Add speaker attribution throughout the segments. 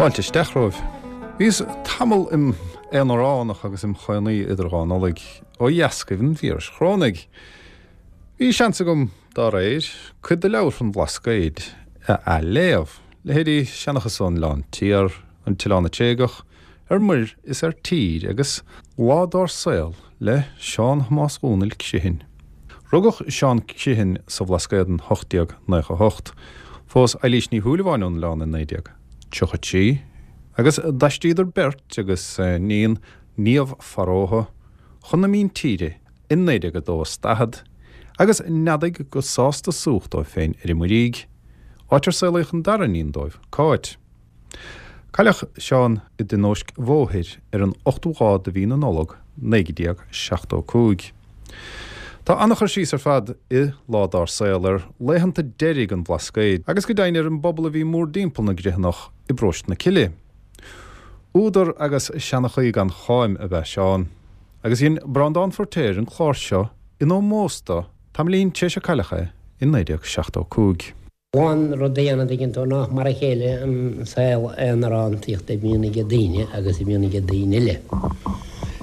Speaker 1: Fáilte isteach romhaibh. Bhíos tamall im aonaránach agus im chónaí idir dhá Nollaig ó dheascaibh an víris chorónaigh. Bhí seans agam, dá réir, cuid de leabhair an Bhlascaoid a athléamh, leithéidí Seanchas ón Oileán Tiar, An tOileán Tréigeach, Ar Muir is ar Tír agus Lá Dár Saol le Seán Thomáis Dhónaill Criomhthain. Rugadh Seán Criomhthain sa Bhlascaod in 1898. Phós Eilís Ní Shúilleabháin ón oileán in 1933 agus d'aistríodar beirt agus a n-iníon Niamh Farótha chun na míntíre in 1942 is 40 agus neadaigh go sásta súch dóibh féin ar an Muirígh, áit ar saolaíodh an dara iníon dóibh, Cáit. Cailleadh Seán i dtionóisc bhóthair ar an ochtú lá de mhí na Nollag 1975. Tá an-chur síos ar fad i Lá Dár Saol ar laethanta deiridh an Bhlascaoid agus go deimhin ar an bpobal a bhí mórdtimpeall na gCriomhthanach i bparóiste na Cille. Údar agus seanchaí gan cháim ab ea Seán, agus dhein Breandán Feiritéar an clár seo in ómós dó tamaillín tar éis ar cailleadh é i 1975.
Speaker 2: An rud a dhéanamh, an dtuigeann tú, nach mar a chéile an saol aonarántaíochta a bhíonn ag daoine agus a bhíonn ag daoine eile.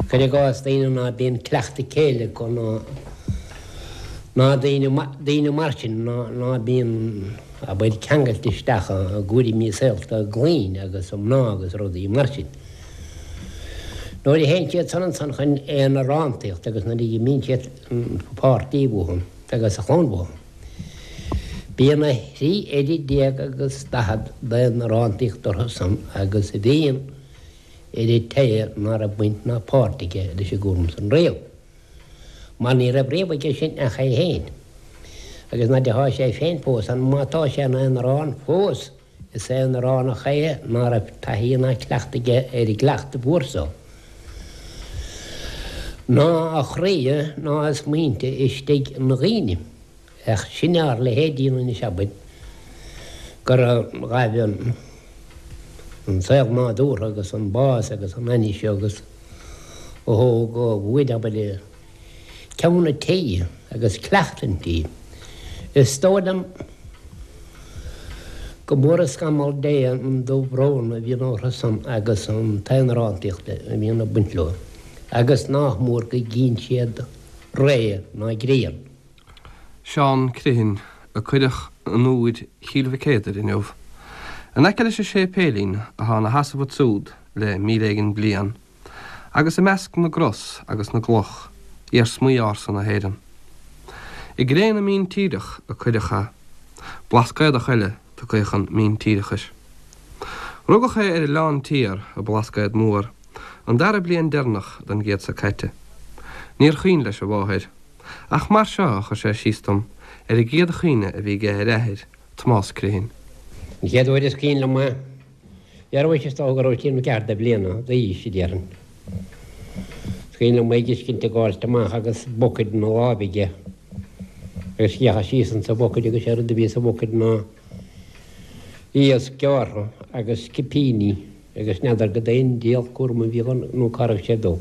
Speaker 2: Cuir i gcás daoine ná bíonn cleachtadh céille acu ná ná daoine daoine mar sin ná ná bíonn abair ceangailte isteach i gcúraimí saolta a gclainne agus a mná agus rudaí mar sin. Nuair a théann siad san ansan chun aonarántaíochta agus nuair a imíonn siad an páirtí uathu agus a chlann uathu. Bíonn a thrí oiread déag agus 40 d'aonarántaíocht orthu san agus a bhíonn ar an té ná raibh baint ná páirt aige leis an gcúram san riamh. Mar ní raibh riamh aige sin ach é féin. Agus nuair athá sé féin fós ann, má tá sé ina aonarán fós, Is aonaránach é ná raibh taithí ná cleachtadh aige ar an gcleachtadh mhór so. Ná a chroí ná a smaointe istigh ina dhaoine. Ach sin ár leithéidí anois, abair, gur ghaibh an saol nádúrtha agus an bás agus an ainnis agus a thóg uainn, abair, ceann an tí agus cleachtadh an tí. Is dóigh liom go mór an scamall Dé an dubh-bhrón a bhíonn orthu san agus an t-aonarántaíocht a bhíonn ag baint leo, agus nách mór go gcíonn siad ré ná grian.
Speaker 3: Seán Criomhthain, a cuireadh in Iúir Chill Mhic Éadair inniu. In aice leis an séipéilín atá ina sheasamh ansúd le 1000 éigin bliain. agus i measc na gcros agus na gcloch, iarsmaí ársa na hÉireann. I gcré na míntíreach a cuireadh é, Blascaodach eile tugtha chun míntíreachais. Rugadh é ar an Oileán Tiar i mBlascaod Mór, an dara bliain deireanach den gcéad seo caite. Níor chuimhin leis a mháthair, ach mar seo a chuir sé síos dom ar an gcéad chuimhne a bhí aige ar a athair, Tomás Criomhthain.
Speaker 2: An chéad uair is cuimhin liom é, Dhearbhaigh is dócha go raibh sé nó ceathair de bhliana d'aois, a déarfainn. Is cuimhin liom é ag fheiscint ag gabháilt amach agus bucket ina láimh aige agus d'fhéachas síos insa bhucket agus sé rud a bhí sa bhucket ná iasc gearrtha agus cipíní agus n'fheadar cad é an diabhal cúram a bhí ann nó cá raibh sé ag dul.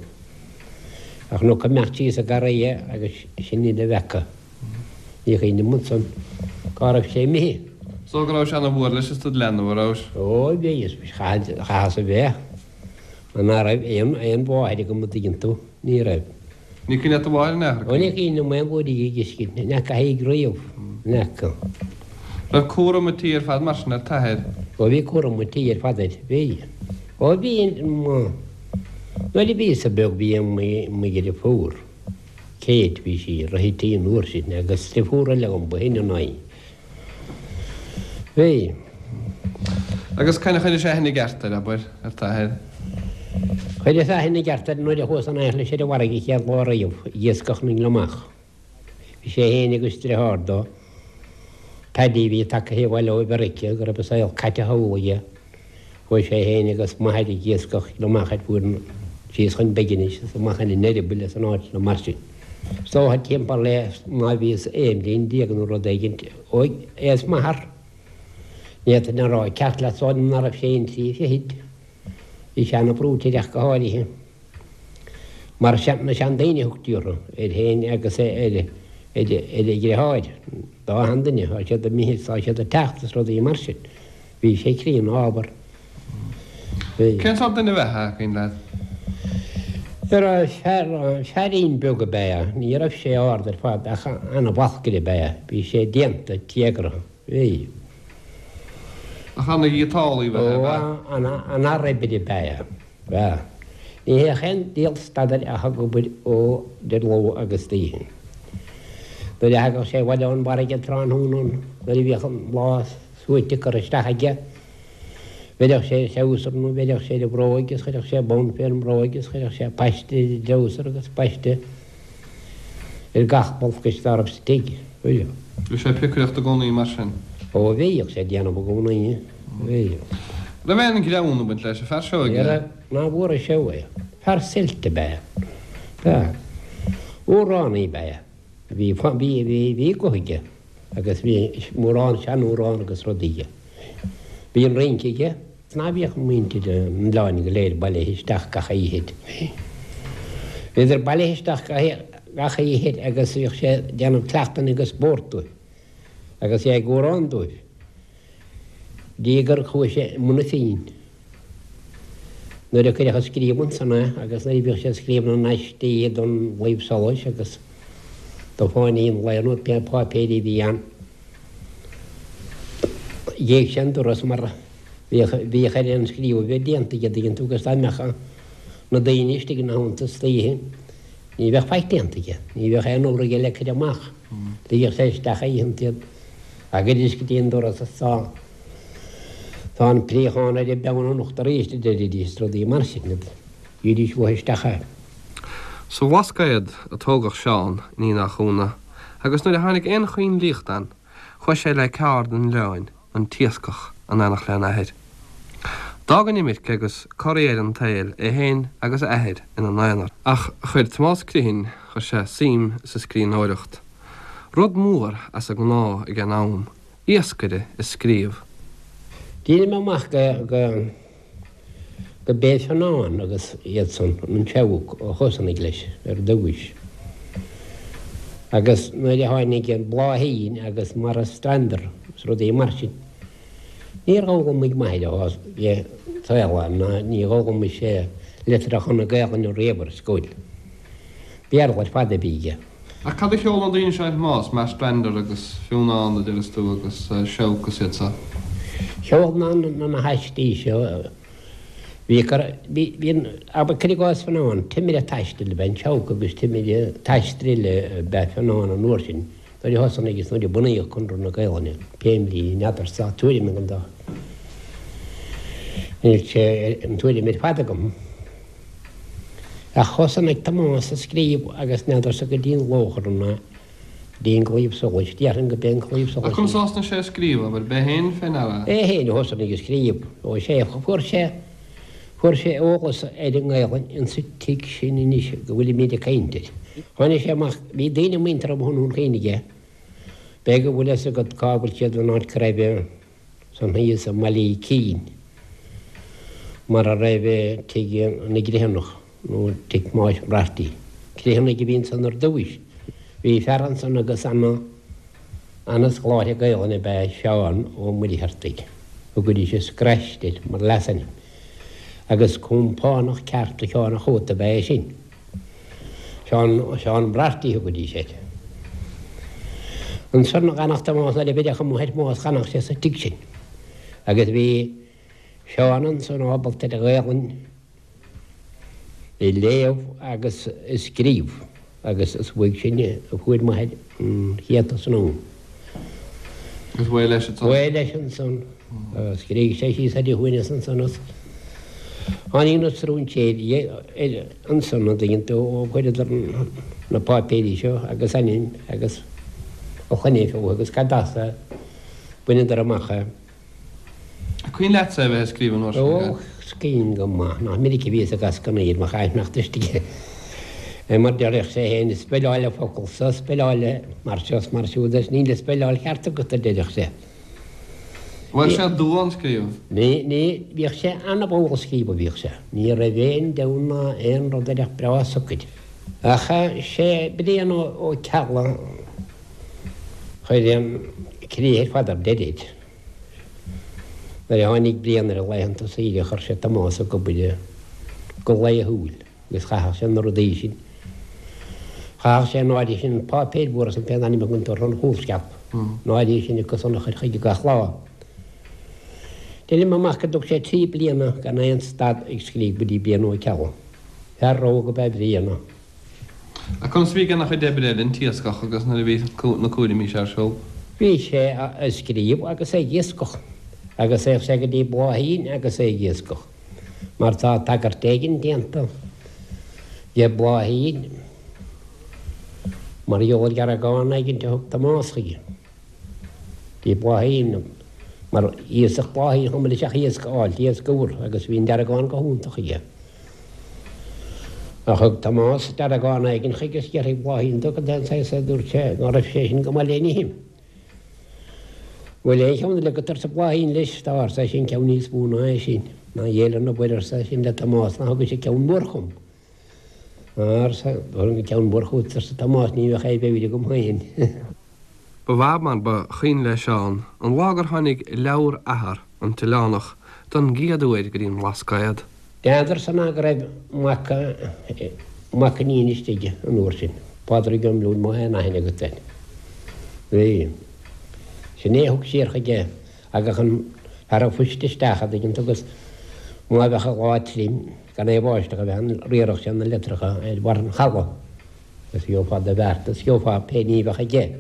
Speaker 2: Ach chonac ag imeacht síos an garraí é agus sin uile a bhfeaca. Ní chuimhním ansan cá raibh sé imithe.
Speaker 3: So go raibh sé ana mhór leis is tú id leanbh, a raibh?
Speaker 2: Ó bhí, is chaitheas a bheith, mar ná raibh aon aon mháthair agam a' dtuigeann tú, ní raibh.
Speaker 3: Ní cuimhin leat do mháthair in aon chor?
Speaker 2: Ó ní cuimhin liom aon uair í a fheiscint, ní fhaca í riamh, ní fhaca.
Speaker 3: Raibh cúram an tí ar fad mar sin ar t'athair?
Speaker 2: Ó bhí cúram an tí ar fad air, bhí. Ó bhí, nuair a bhíos-sa beag bhí mo dheirfiúr. Kate, bhí sí ag rith an tí an uair sin agus deirfiúr eile agam ba shine ná í. Bhí.
Speaker 3: Agus conas a chuiris aithne i gceart air, abair, ar t'athair?
Speaker 2: Chuireas aithne i gceart air nuair a chuas in éineacht leis ar an bhfarraige an chéad lá riamh ag iascach na ngliomach. Bhí sé féin agus driotháir dó, Paddy, a bhí tagtha abhaile ó Mheiriceá, go raibh a saol caite thall aige. Chuaigh sé féin agus m'athair ag iascach gliomach ar fuaid síos chun Beginis is amach ina n-eireaball is in áiteanna mar sin. Is dócha timpeall le má bhíos aon bhliain déag nó rud éigint óg é is m'athair. Ní fhéadfainn a rá ceart leat is dóigh liom ná raibh sé aon trí fichid. Bhí sé ana-bhrúite ach go háirithe. Mar na seandaoine a thugtaí orthu, air féin agus ar a dhriotháir, dá sheanduine, tá siad imithe is tá siad ag teacht is rudaí mar sin. Bhí sé críonna ábhar. Bhí.
Speaker 3: Cén sórt duine ab ea é, an cuimhin leat?
Speaker 2: Fear, feairín beag ab ea é. Ní raibh sé ard ar fad ach ana-bhalcaire ab ea é. Bhí sé déanta, téagartha. Bhí.
Speaker 3: Ach ana-ghiotálaí ab ea é, ab ea?
Speaker 2: Ó, ana-fhear oibre ab ea é. Bhea. Ní théadh aon diabhal stad air ach ag obair ó idir ló agus d'oíche. Nuair a thagadh sé abhaile ón bhfarraige tráthnóna, nuair a bhíodh an lá suaite curtha isteach aige, bheireadh sé ar threabhsar nó bheireadh sé ar a bhróig agus chuirfeadh sé bonn fén mbróig agus chuirfeadh sé paiste ar an dtreabhsar agus paiste ar gach balcaiste dá raibh sa tigh.
Speaker 3: Bhí sé ag piocaireacht i gcónaí mar sin?
Speaker 2: Ó bhíodh sé ag déanamh i gcónaí. Bhí.
Speaker 3: Raibh aon ghreann ag baint leis an fear seo
Speaker 2: aige? Ní raibh, ná fuair sé uaidh. Fear suilt ab ea é. B'ea. Amhránaí ab ea é. Bhí, bhí, bhí, bhí guth aige agus bhí mórán seanamhrán agus rudaí aige. Bhí an rince aige. Ná bhíodh muintir an oileáin go léir bailithe isteach gach oíche. Bhíodar bailithe isteach gach oíche agus bhíodh sé ag déanamh cleachtanna agus spórt dóibh agus é ag amhrán dóibh. Dtí gur chuaigh sé i mbun a phinn. Nuair a cuireadh ag scríobh ansan é agus nuair a bhíodh sé ag scríobh na n-aistí don Chlaíomh Solais agus do Fáinní an Lae nó pé páipéirí a bhí ann, Ghéag sé an doras mar bhíodh bhíodh air an scríobh a bheith déanta aige, dtuigeann tú, agus dá mbeadh na daoine istigh ina theannta istoíche ní bheadh faic déanta aige, ní bheadh aon obair aige le cur amach. Ligeadh sé isteach oícheanta iad thagaidís go dtí an doras is tá tá an préachán ar an bpeann anocht arís a deiridís is rudaí mar sin. Bhídís uathu isteach é.
Speaker 3: Sa Bhlascaod a tógadh Seán, ní nach ionadh, agus nuair a tháinig aon choinlíocht ann, chuaigh sé le ceárd an oileáin, an t-iascach, in éineacht lena athair. D'fhág an imirce agus corraí air an tsaoil é féin agus a athair ina n-aonar. Ach chuir Tomás Criomhthain, chuir sé suim sa scríbhneoireacht. Rud mór as an ngnáth ag an am, iascaire ag scríobh.
Speaker 2: D'éirigh mé amach go. go b'é Fionán agus iad san, an Seabhac, a thosnaigh leis ar dtúis. Agus nuair a tháinig an Bláithín agus Marstrander is rudaí mar sin, níor dh'fhoghlaimigh m'athair a bhí saol ann ná ní dh'fhoghlaimigh sé litreacha na Gaelainne riamh ar scoil. Béarla ar fad a bhí aige.
Speaker 3: Ach cad a cheol na daoine seo a Thomáis, Marstrander agus Fionnán a deireas tú agus Seabhac is iad seo?
Speaker 2: Cheol na na haistí seo, bhí cur, bhí, bhí an, abair cuir i gcás Fionnán, timire taistil ab ea an Seabhac agus timire taistil eile ab ea Fionnán an uair sin, nuair a thosnaigh is nuair a bunaíodh Conradh na Gaelainne, pé mbliain, n'fheadarsa, tá tuairim agam dá, níl sé an tuairim ar fad agam. Ach thosnaigh Tomás ag scríobh agus n'fheadarsa go dtí an Lóchrann ná go dtí an Claíomh Solais, déarfainn go b'é an Claíomh Solais.
Speaker 3: Ach conas a thosnaigh sé ag scríobh, abair, b'é féin fé ndeara
Speaker 2: é? É féin a thosnaigh ag scríobh. Ó sea, fuair sé, fuair sé eolas ar an nGaelainn insa tigh sin anois go bhfuilimíd ag caint air. Tháinig sé amach, bhí daoine muinteartha amuigh i nDún Chaoin aige, b'fhéidir go bhfuil fhios agat cá bhfuil siad an áit go raibh, Ansan thíos i mBaile Uí Cinn, mar a raibh tigh na gCriomhthanach, nó tigh Thomáis Mbrartaigh. Criomhthanaigh a bhí ansan ar dtúis. Bhí fear ansan agus ana, ana-scoláire Gaelainne ab ea Seán Ó Muircheartaigh. Thugaidís an Scraiste air mar leasainm. Agus compánach ceart do Sheán a' Chóta ab ea é sin. Seán, Seán Brarty a thugaidís air. Ansan d'fhanadh Tomás nuair a bheireadh amuigh ar Thomás d'fhanadh sé sa tigh sin. Agus bhí Seán ansan ábalta ar an Ghaelainn a léamh agus a scríobh agus is uaidh sin a fuair m'athair an chéad tosnú.
Speaker 3: Agus b'é leis
Speaker 2: ansan? B'é leis ansan. Scrígh sé síos ar a shuaimhneas ansan is tháinig na stróinséirí ansan an dtuigeann tú ó chuireadar na páipéirí seo agus ainm agus a shloinne fúthu agus cad as é, bhaineadar amach é.
Speaker 3: An cuimhin leatsa é bheith ag scríobh an uair sin?
Speaker 2: Ó, is cuimhin go maith. Nach minic a bhíos ag ascarnaíl mo chaithneacht istigh é mar deireadh sé féin, speileáil an focal so, speileáil é mar seo is mar siúd is níl an speileáil cheart agat, a deireadh sé.
Speaker 3: Bhfuil sé dua an scríobh?
Speaker 2: Ní, ní, bhíodh sé ana-mhall ag scríobh a bhíodh sé. Ní raibh aon deamhan ná aon rud air ach breá socair. Ach sé Brian Ó Ceallaigh a chuir an críoch ar fad ar deireadh. Nuair a tháinig Brian ar a laethanta saoire chuir sé Tomás ag obair go laethúil agus chaitheadh sé na rudaí sin. Chaitheadh sé an áirithe sin páipéir mhóra san pé ainm a thugann tú orthu an chúlsceap, an áirithe sin acu san a chur chuige gach lá. Deinim amach go dtug sé 3 bliana gan aon stad ag scríobh go dtí Brian Ó Ceallaigh. Fear rogha ab ea Brian.
Speaker 3: Ach conas a bhí ag déanamh a chuid oibre eile, an t-iascach agus nuair a bhí na cúraimí seo ar siúl?
Speaker 2: Bhí sé ag scríobh agus ag iascach agus théadh sé go dtí Bláithín agus é ag iascach mar tá tagairt éigin déanta de Bhláithín mar gheall ar dheargán éigin a thug Tomás chuige. Dtí Bláithín mar iascach Bláithín chomh maith leis ach iasc a fháilt, iasc úr agus bhí an deargán go hiontach aige. Ach thug Tomás deargán éigin chuige is d'fhiafraigh Bláithín de cad é an saghas é dúirt sé ná raibh sé sin go maith le n-ithe. Bhfuil aon cheann eile agat arsa Bláithín leis, tá arsa eisean ceann níos mó ná é sin. Ná Dhia lena mhuire arsa eisean le Tomás ná thugaise ceann mór chugam. Arsa, thabharfainn an ceann mór chugat arsa Tomás ní bheadh aon mheabhair agam féin.
Speaker 3: Ba mhaith mar ba chuimhin le Seán an lá gur tháinig leabhar athar, an tOileánach, don gcéad uair go dtí an mBlascaod.
Speaker 2: N'fheadarsa ná go raibh mac, mac iníne istigh an uair sin, Pádraig Ó Miolúin, má tá aon aithne agat air. Bhí. Sin é a thug siar chuige thagadh an fear an phoist isteach a' dtuigeann tú agus má bheadh an lá tirim gan aon bháisteach a bheith ann riarfadh sé na litreacha ar bharr an chalaidh agus gheofá do bheart is gheofá pé ní a bheadh aige.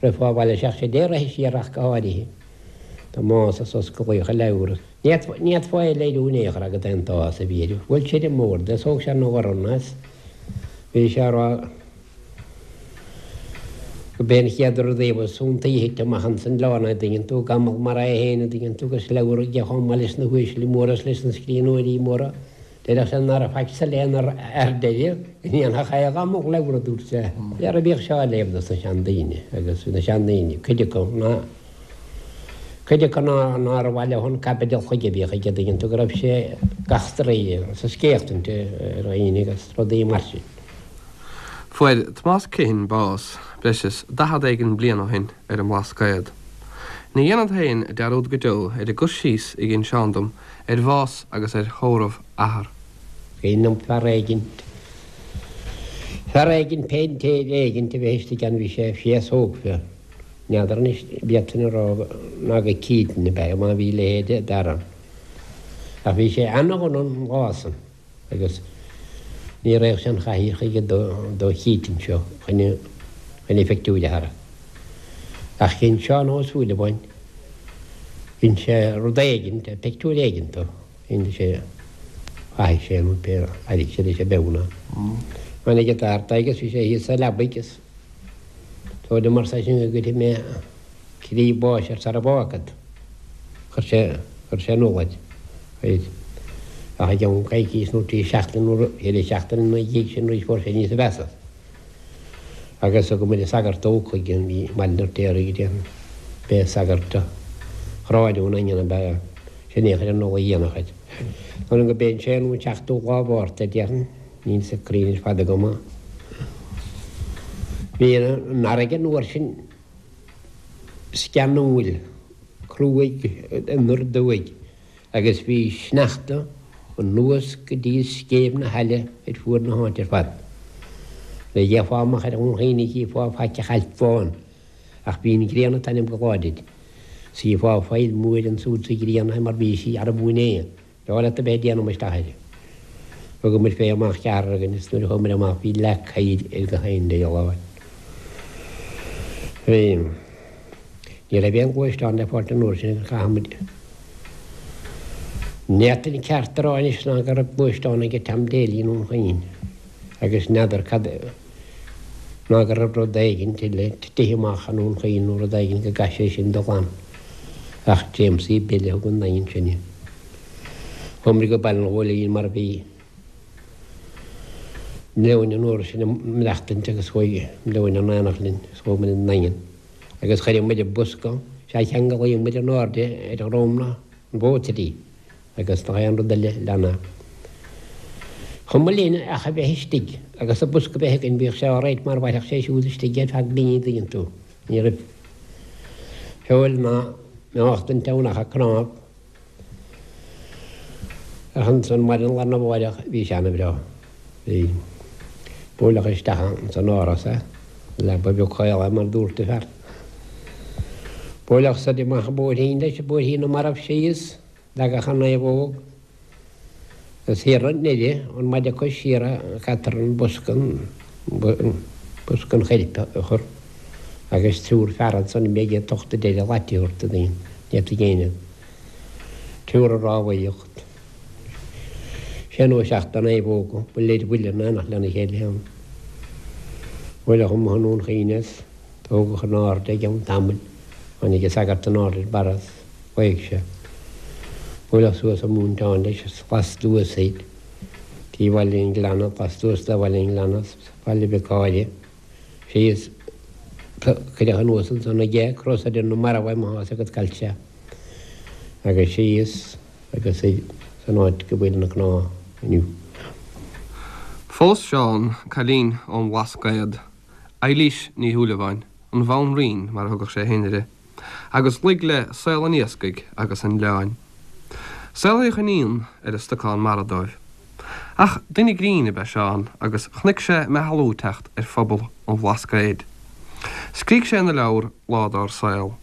Speaker 2: Rithfeá abhaile isteach sé dé rith siar ach go háirithe. Tomás is osclaíodh a leabhar. Ní fhéadfá é a léiriú in aon chor agat an t-áthas a bhí air. Bhuail sé ar an mbord é is thóg sé ina dhorn é is bhí sé á rá go b'é an chéad rud a ba iontaí a thit amach ins an oileán é, an dtuigeann tú, gamal mar é féin, an dtuigeann tú, agus leabhar aige chomh maith leis na huaisle móra is leis na scríbhneoirí móra. Déarfadh sé ná raibh faic sa léann ar deireadh go ndéanfadh aon ghamal leabhar, a dúirt sé. Leabhar a bhíodh seo á léamh dos na seandaoine agus na seandaoine, cuid acu, ná cuid acu ná nár mhaith leo an caibideal chuige a bhíodh aige, an dtuigeann tú, go raibh sé ag eachtraí is ag scéachtaint ar dhaoine agus rudaí mar sin.
Speaker 3: Fuair Tomás Criomhthain bás breis is 40 éigin bliain ó shin ar an mBlascaod. Ní dhéanfad féin dearúd go deo ar an gcur síos a dhein Seán dom ar bhás agus ar thórramh athar.
Speaker 2: Cuimhin liom fear éigint, fear éigint, péintéir éigint a bheith istigh ann, bhí sé féasóg, n'fheadar anois, b'fhéadfainn a rá ná go Keaton ab ea é, má bhí a leithéid d'fhear ann. Ach bhí sé ana-dhona an lá san. Agus ní raghadh sé an chathaoir chuige do Keaton seo chun a phictiúir a tharrac. Ach dhein Seán Ó Súilleabháin, dhein sé rud éigint, pictiúr éigint dó, dhein sé, mhaithigh sé nó pé airigh sé leis an bpeann é. Tháinig an t-athair agus bhí sé thíos sa leabaidh agus dóigh liom arsa eisean go gcuirfidh mé Croí báis air sara bhfágfad. Chuir sé, chuir sé in iúl air. Ach i gceann coicís nó 3 seachtaine nó 4 seachtaine ina dhiaidh sin arís fuair sé níosa mheasa. Agus thug muid an sagart óg chuige i mBaile an Fheirtéaraigh déarfainn. B'é sagart Thrá an Daingin ab ea é. Sin é a chuir an ola dhéanach air. Dóigh liom go b'é an séú nó an seachtú lá Mhárta déarfainn. Níl fhios cruinn ar fad agam. Bhí an fharraige an uair sin. sceanúil, cruaidh anoir aduaidh agus bhí sneachta anuas go dtí scéimh na haille ar fuaid na háite ar fad. Nuair a d'fhéachfá amach ar Dhún Chaoin ní chífeá faic ach ailp bhán, ach bhí an ghrian ag taitneamh go láidir. 's chífeá faill mhór ansúd sa ghrian mar bhí sí arbh é. Breá leat a bheith ag déanamh isteach air. Thugamar fé amach ceathrar againn is nuair a chuamar amach bhí leac oighir ar gach aon diabhal áit. Bhí. Ní raibh aon ghluaisteán le fáilt an uair sin agus chaith muid. Ní fhéadfainn ceart a rá anois ná go raibh gluaisteán aige Tom Daly i nDún Chaoin agus n'fheadar cad ná go raibh rud éigint eile titithe amach i nDún Chaoin nó rud éigin go gcaith sé sin dul ann. Ach Jamesie Bill a thug 'on Daingean sinne. Chuamar go Baile an Ghóilín mar bhí Leoin an uair sin ag maireachtaint agus chuaigh Leoin in aonacht linn agus chuaigh muid 'on Daingean agus chuir muid an bosca, sea cheanglaíodh muid in airde ar dhroim na mhótair í agus nach aon rud eile lena chuma linn ach a bheith istigh agus an bosca a bheith againn bhíodh sé alright mar mhairfeadh sé siúd istigh ar feadh mí an dtuigeann tú. Ní raibh feoil ná meáchtaint ann ach an cnámh. Ach ansan maidin lá arna mháireach bhí sé ana-bhreá. Bhí. Buaileadh isteach ins an áras é, leaba bheag chaol é mar dúirt an fear. Buaileadh soir amach an bóithrín leis, bóithrín na marbh síos, leagadh an naomhóg. Is thiar i nDoire, ón maide cois siar a caitear an bosca, bosca an choirp a chur agus triúr fear ansan a bheidh ag tocht a deireadh lait a thabhairt do daoine, ní fhéadfaidh éinne triúr ag rámhaíocht. Sé nó seacht de naomhóga, buille ar bhuille in éineacht lena chéile ann. Buaileadh amuigh i nDún Chaoin é is tógadh in airde i gceann tamaill. Tháinig an sagart in airde ar barra is ghlaoigh sé. Buaileadh suas an móinteán leis is lastuas thoir dtí Bhaile an Ghleanna, lastuas de Bhaile an Ghleanna is Baile Mhic Áire síos. Cuireadh anuas ansan aige cros ar na mairbh é má thá's agat cá bhfuil sé agus síos agus san áit go bhfuil na cnámha inniu.
Speaker 3: Phós Seán cailín ón mBlascaod, Eilís Ní Shúilleabháin, an Bhanríon mar a thugadh sé féin uirthi, agus luigh le saol an iascaigh agus an oileáin. Saolaíodh iníon ar an stocán mara dóibh. Ach duine grinn ab ea Seán agus chonaic sé meathlú ag teacht ar phobal an Bhlascaoid. Scrígh sé ina leabhar Lá Dár Saol.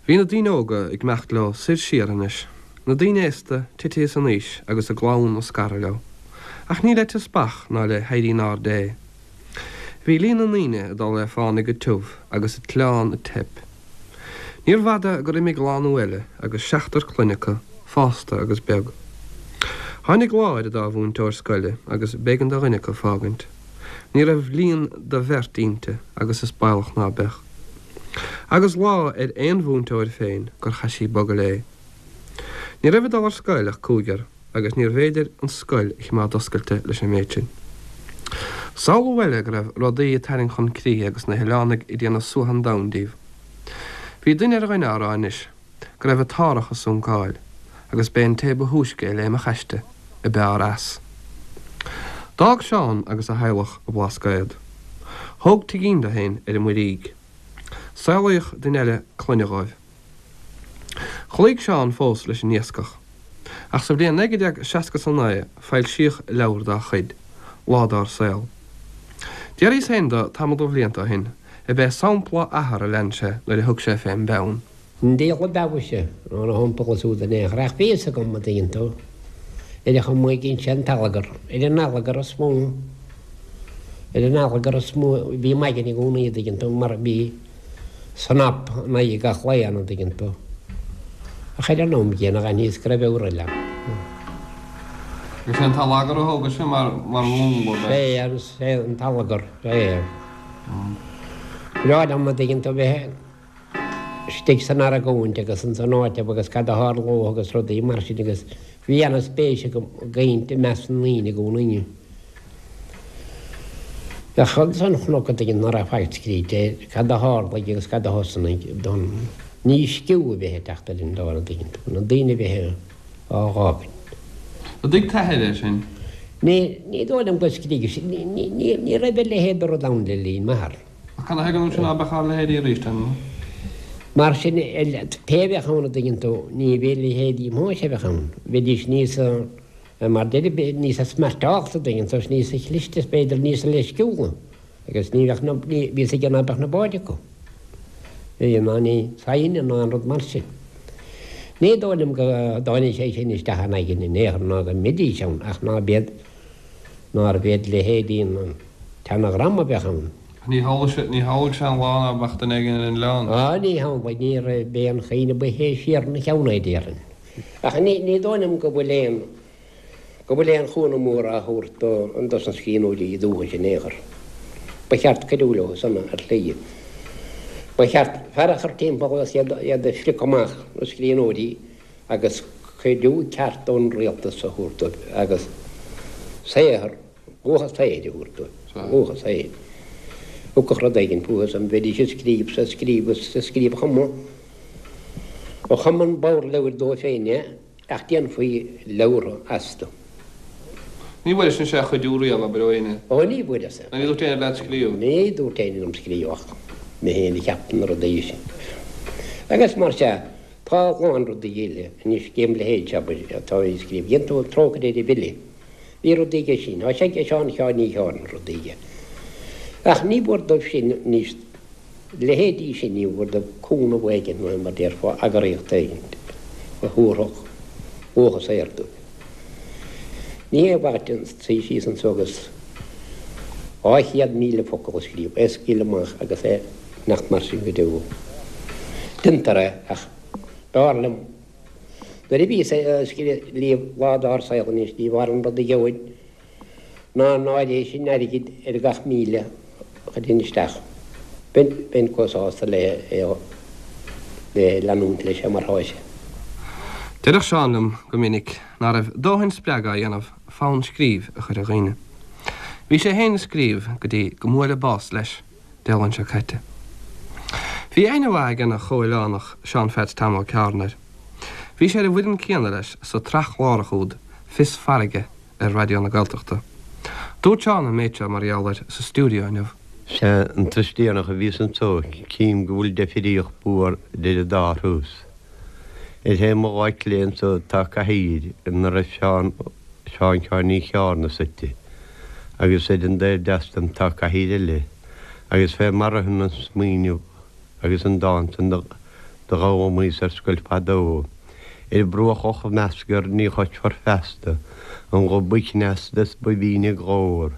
Speaker 3: Bhí na daoine óga ag imeacht leo soir siar anois, na daoine aosta titithe san aois agus a gclann ag scaradh leo. Ach ní le teaspach ná le héirí in airde é. Bhí líon na ndaoine ag dul le fánaidh go tiubh agus an t-oileán ag teip. Níorbh fhada gur imigh lánú eile agus seachtar clainne acu, fásta agus beag. Tháinig lá ar an dá mhúinteoir scoile agus b'éigean do dhuine acu fágaint. Ní raibh líon do bheirt inti agus is baolach ná beadh. Agus lá ar aon mhúinteoir féin gur chaith sí bogadh léi. Ní raibh ag dul ar scoil ach cúigear. agus níorbh fhéidir an scoil a chimeád oscailte leis an méid sin. Samhlú eile go raibh rudaí ag tarraingt chun críche agus na hoileánaigh ag déanamh suaitheadh an domhain díobh. Bhí duine ar dhuine á rá anois go raibh an t-árthach ag suncáil agus b'é an té ba thúisce a léimfeadh aisti a b'fhearr as. D'fhág Seán agus a theaghlach an Blascaod. Thóg tigín dó féin ar an Muirígh. Saolaíodh duine eile clainne dhóibh. Chloígh Seán fós leis an iascach. Ach sa bhliain 1969 foilsíodh leabhar dá chuid, Lá Dár Saol. D'fhiafraíos féin de tamall de bhlianta ó shin ab é sampla a athar a lean sé nuair a thug sé fén bpeann.
Speaker 2: An diabhal ab fheabhais ná na hiompacha súd in aon chor, ach bhí fhios agam, a dtuigeann tú, ar an chuma a dhein sé an t-allagar, ar an allagar is mó, ar an allagar is mó a bhí m'aigne i gcónaí, a dtuigeann tú, mar bhí. Snap in aghaidh gach lae ann, an dtuigeann tú. Ach ar an am gcéanna dh'aithníos go raibh eabhar eile ann.
Speaker 3: Is é an t-allagar a thógais-se mar mhúnla de.
Speaker 2: Sé an, sé an t-allagar, sé. Breá liom, an dtuigeann tú, bheith istigh san argóint agus ins an áit agus cad a tharlódh agus rudaí mar sin agus bhí ana-spéis agam i gcaint i measc na ndaoine i gcónaí. Bheadh ansan chnoc a dtuigeann ná raibh faic scríte air, cad a tharlaigh agus cad a thosnaigh don dísciú a bheith ag teacht ar an domhan a dtuigeann tú, na daoine a bheith á dh'fhágaint.
Speaker 3: An dtuig t'athair é sin?
Speaker 2: Ní, ní dóigh liom go scrígh sé, ní, ní, ní, ní raibh a leithéid de rud ann le linn m'athar.
Speaker 3: Ach cad a thuigeann tú sin ná beadh ár leithéidí arís ann?
Speaker 2: Mar sin, pé a bheadh ann a dtuigeann tú, ní bheadh leithéidí m'athair a bheadh ann, bheidís níos. Mar deir, níosa smeairteálta, an dtuigeann tú, is níosa chliste is b'fhéidir níosa leisciúla agus ní bheadh na, ní, bhí fhios aige ná beadh na báid acu. Bhí ná ní saighne ná aon rud mar sin. Ní dóigh liom go dtáinig sé sin isteach in aigne in aon chor ná go mbeidís ann ach ná b'iad, nárbh iad leithéidí an tseana-dhream a bheadh ann.
Speaker 3: Ní shamhlaigh sé, ní shamhlaigh sé an lá ná beadh duine éigin ar an oileán.
Speaker 2: Á, ní shamhlaigh, ní raibh, b'é an chaoineadh ba shine siar ina cheann é, déarfainn. Ach ní dóigh liom go bhfuil aon go bhfuil aon chúnamh mór á thabhairt do dos na scríbhneoirí dúchais in aon chor. Ba cheart cuidiú leo san ar shlí. Ba cheart fear a chur timpeall agus iad iad a phriocadh amach, na scríbhneoirí, agus cuidiú ceart ón rialtas a thabhairt dóibh agus saothar, luach a saothair a thabhairt dóibh, luach a saothair. Thiocfadh rud éigin fúthu san, bheidís ag scríobh 's ag scríobh is ag scríobh chuma. Chum an bodhar leabhair dóibh féin é, ach déanfaí leabhartha astu.
Speaker 3: Ní bhfuairis mise aon chuidiú riamh, abair, ó éinne?
Speaker 2: Ó, ní bhfuaireas.
Speaker 3: Ní dúirt éinne leat scríobh?
Speaker 2: Ní dúirt éinne liom scríobh ach mé féin a cheap na rudaí sin. Agus mar sea, Tá a lán rudaí eile anois gem leithéid, abair, atá á scríobh. Dhein tú Trócaire ar an bhFile. Bhí rudaí aige sin. Tá sé ag Seán Sheáin Uí Sheáin rudaí aige. Ach ní mhór dóibh sin anois, leithéidí sin, ní mhór dóibh cúnamh éigin nó mar déarfá eagraíocht éigin a thabharfadh luach a saothair dóibh. Ní hé mhaith duit suí síos anso agus 200,000 focal a scríobh, é a scaoileadh amach agus é nach mar sin go deo. Déantar é ach b'fhearr liom nuair a bhíos ag scríobh lá dár saol anois ní b'fhearr an rud a gheobhainn ná an áiréis sin airgid ar gach 1,000 a chuirfinn isteach. Bheinn chomh sásta le é le leanúint leis mar thá sé.
Speaker 3: Deireadh Seán liom go minic ná raibh dóthain spreagadh á dhéanamh fonn scríbh a chur ar dhaoine. Bhí sé féin ag scríobh go dtí go mbuaileadh bás leis. Dé Luain seo caite. Bhí aithne mhaith ag an chomhoileánach Seán Pheaits Tom Ó Ceárna air. Bhí sé ar an bhfoireann céanna leis sa tsraith chlárach úd Fios Farraige ar Raidió na Gaeltachta. Dúirt Seán an méid seo mar gheall air sa stiúideo inniu.
Speaker 4: Sea, an turas deireanach a bhíos anso, cím go bhfuil deifríocht mhór idir an dá thuras. Ar thaobh mo láimhe clé anso tá cathaoir ina raibh Seán Seán Sheáin Uí Cheárna suite, agus ar an dtaobh deas dom tá cathaoir eile, agus fé mar a ritheann an smaoineamh agus an dán san do d'fhoghlaimíos ar scoil fadó, Ar bruach Loch Meascair ní chloisfear feasta an guth ba chneasta is ba bhinne glór,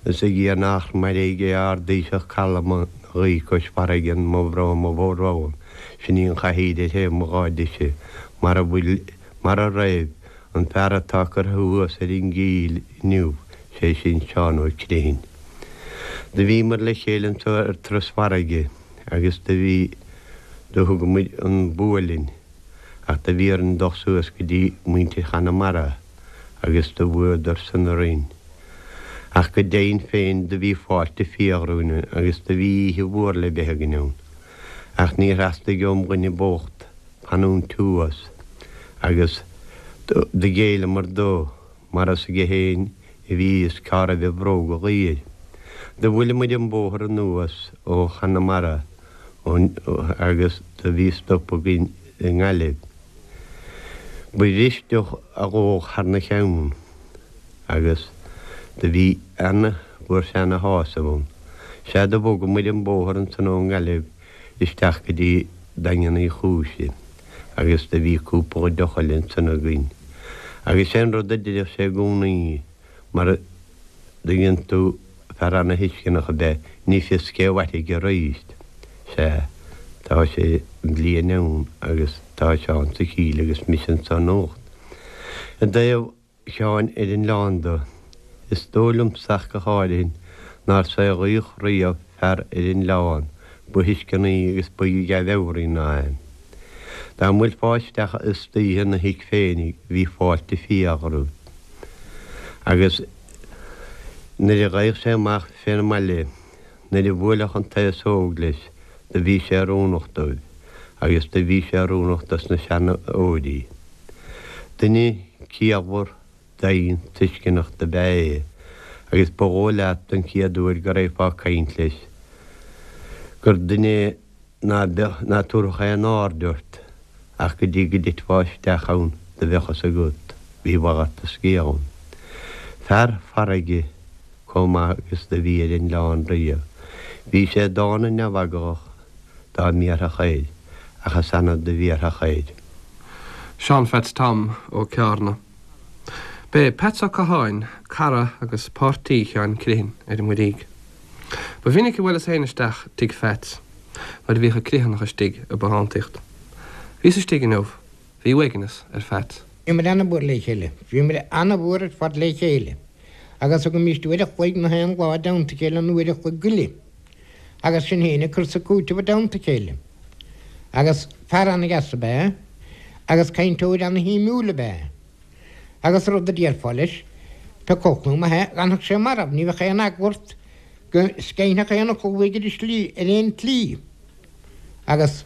Speaker 4: is ag iarraidh nach mairg é ard-taoiseach calma na ghaoth cois farraige mo bhrón mo bhrón. Sin í an chathaoir ar thaobh mo láimhe deise, mar a bhfuil, mar a raibh, an fear atá curtha thuas ar an gcill inniu, sé sin Seán Ó Criomhthain. Do bhíomar le chéile anso ar turas farraige agus do bhí, do thug muid an bua linn ach do bhí orainn dul suas go dtí muintir Chonamara agus do bhuadar san orainn. Ach go deimhin féin do bhí fáilte fial romhainn agus do bhí oíche mhór le bheith againn ann. Ach níor theastaigh óm dhuine bocht fanúint thuas agus do ghéilleamar dó mar is aige féin a bhí fhios cá raibh a bhróga dhaor. Do bhuaile muid an bóthar anuas ó Chonamara agus do bhí stop againn i nGaillimh. Ba bhris deoch a dhódh thar na cheann agus do bhí ana, fuair sé ana shásamh ann. Sea do bhog muid an bóthar ansan ón nGaillimh isteach go dtí Daingean Uí Chúis agus do bhí cúpla deoch eile ansan againn. Agus sé an rud a deireadh sé i gcónaí mar a dtuigeann tú fear ana-thuisceanach ab ea, ní fios cé mhairfidh aríst. Sea, tá sé bliain ann agus tá Seán sa chill agus mise anso anocht. I dtaobh Sheáin ar an oileán do, is dóigh liomsa ach go háirithe nár saolaíodh riamh fear ar an oileán ba thuisceanaí agus ba dhea-mheabhraí ná é. Dá mbuailfeá isteach istoíche ina thigh féinig bhí fáilte fial romhat. Agus nuair a gheibheadh sé amach fén mbaile, nuair a bhuailfeadh an t-aos óg leis, do bhí sé oiriúnach dóibh, agus do bhí sé oiriúnach dos na seanóirí. Duine ciallmhar, doimhin, tuisceanach do b'ea é, agus ba dhóigh leat don chéad uair go raghfá ag caint leis gur duine ná beadh, ná tabharfadh aon aird ort ach go dtí go dtitfeá isteach ann do bheadh fhios agat, bhí mhalairt an scéil ann. Fear farraige comh maith agus do bhí ar an oileán riamh. Bhí sé dána neamheaglach dá mbéarfadh air, ach is annamh do bhéarfadh air.
Speaker 3: Seán Pheats Tom Ó Ceárna. B'é Peats Ó Catháin cara agus páirtí Sheáin Criomhthain ar an Muirígh. Ba mhinic a bhuaileas féin isteach tigh Pheats nuair a bhíodh an Criomhthanach istigh i bbothántaíocht. Bhíos istigh inniu. Bhí uaigneas ar Pheats.
Speaker 5: Bhíomar ana-mhór le chéile. Bhíomar ana-mhór ar fad le chéile. Agus thugaimíst uair a chloig na haon lá i dteannta a chéile nó uair a chloig go leith. Agus sinn féin ag cur 's ag cúiteamh i dteannta a chéile. Agus fear ana-dheas ab ea é, agus cainteoir ana-shuimiúil ab ea é. Agus rud a déarfá leis, pé acu olc nó maith é, d'fhanfadh sé marbh, ní bheadh aon eagla ort go sceinnfeadh aon fhocal uaidh ar an slí, ar aon tslí. Agus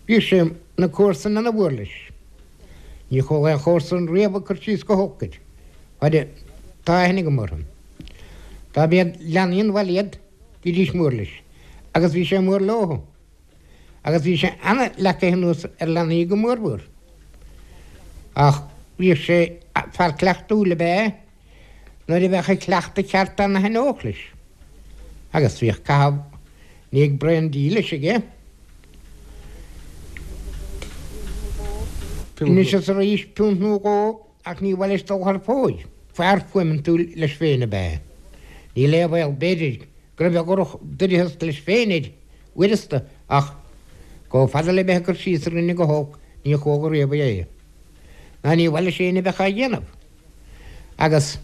Speaker 5: bhíodh sé, na comharsain ana-mhór leis. Ní chuala aon chomharsan riamh ag cur síos go holc air. Fad tá aithne agam orthu. Dá mb'iad leanaí an bhaile iad, bhídís mór leis. Agus bhí sé mór leo. Agus bhí sé ana-leagtha anuas ar leanaí go mórmhór. Ach bhíodh sé, fear cleachtúil ab ea é, nuair a bheadh an cleachtadh ceart ann a thaitneodh leis. Agus bhíodh caitheamh i ndiaidh braon dí leis aige. Anois is arís, piúnt nó dhó, ach ní mhaith leis dul thar fóir. Fear fuaimeantúil leis féin ab ea é. Níl aon bhaol, b'fhéidir, go raibh a dhroch-doicheas leis féin air uaireanta, ach chomh fada le bheith ag cur síos ar dhuine go holc, ní chuala riamh é. Ná ní mhaith leis éinne a bheith á dhéanamh. Agus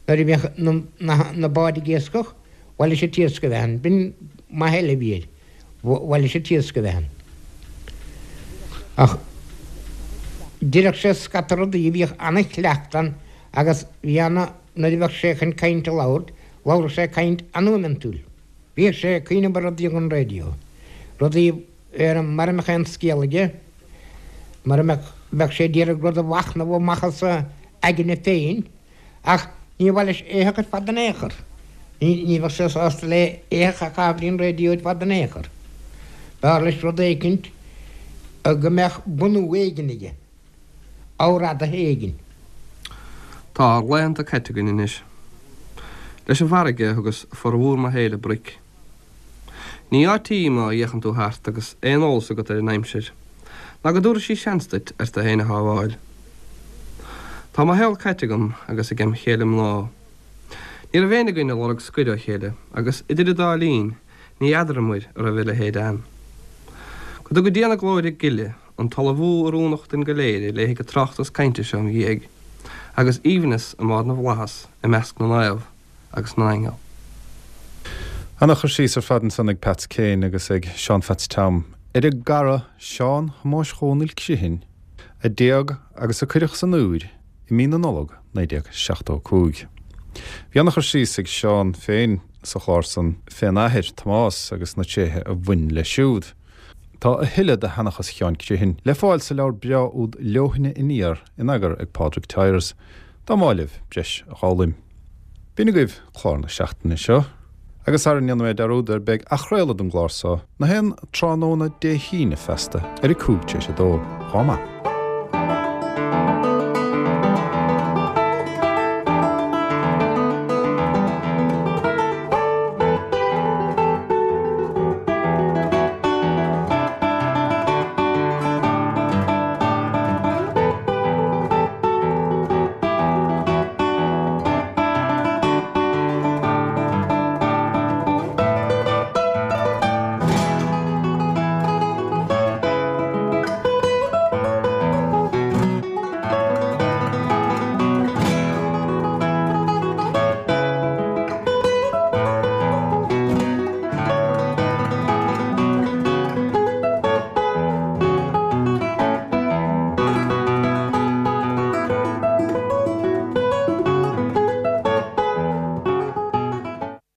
Speaker 5: nuair a bhíodh na báid ag iascach, mhaith leis an t-iasc a bheith ann. B'in maith eile a bhí air. Mhaith leis an t-iasc a bheith ann. Ach deireadh sé scata rudaí, bhíodh ana-chleachtadh ann agus bhí ana, nuair a bheadh sé chun caint a labhairt, labhradh sé caint an-fhuaimeantúil. Bhíodh sé ag cuimhneamh ar rudaí don raidió, rudaí ar mura mbeadh aon scéal aige, mura mbeadh, bheadh sé d'iarraidh rud a mhachnamh amach as a aigne féin, ach ní mhaith leis éitheach ar fad in aon chor. Ní bheadh sé sásta le éitheach a chaitheamh ar an raidió ar fad in aon chor. B'fhearr leis rud éicint go mbeadh bunú éigin aige, ábhar éigin.
Speaker 3: Tá ár laethanta caite againn anois. Leis an bhfarraige a thugas formhór mo shaoil ag broic. Ní áit í má fhéachann tú thart agus aon eolas agat ar an aimsir, ná go dtabharfaidh sí seans duit ort féin a shábháil. Tá mo shaol caite agam agus ag em chéile mná. Ní raibh éinne againn ag lorg scoir ó chéile agus idir an dá linn ní fheadaramair a raibh a leithéid ann. Go dtuga Dia na glóire gile an t-ullmhú oiriúnach duinn go léir a léifidh an tráchtas cainte seo im dhiaidh, agus aoibhneas i mbárr na bhflaitheas i measc na naomh. agus na n-aingeal.
Speaker 1: Ana-chur síos ar fad ansan ag Peats Kane agus ag Seán Pheaits Tom ar a gcara Seán Thomáis Dhónaill Criomhthain a d'éag agus a cuireadh san úir i mí na Nollag 1975. Bhí ana-chur síos ag Seán féin sa chlár san fén athair, Tomás, agus na tréithe a bhain leis siúd. Tá a thuilleadh de sheanchas Sheáin Criomhthain le fáil sa leabhar breá úd Leoithne Aniar in eagar ag Pádraig Tyers. Dá mb'áil libh breis a dh'fhoghlaim. B'in agaibh clár na seachtaine seo, agus sara ndéanfaidh mé dearúd air beidh athchraoladh den gclár so na haon tráthnóna Dé hAoine feasta ar a 2:05. Dhá mba.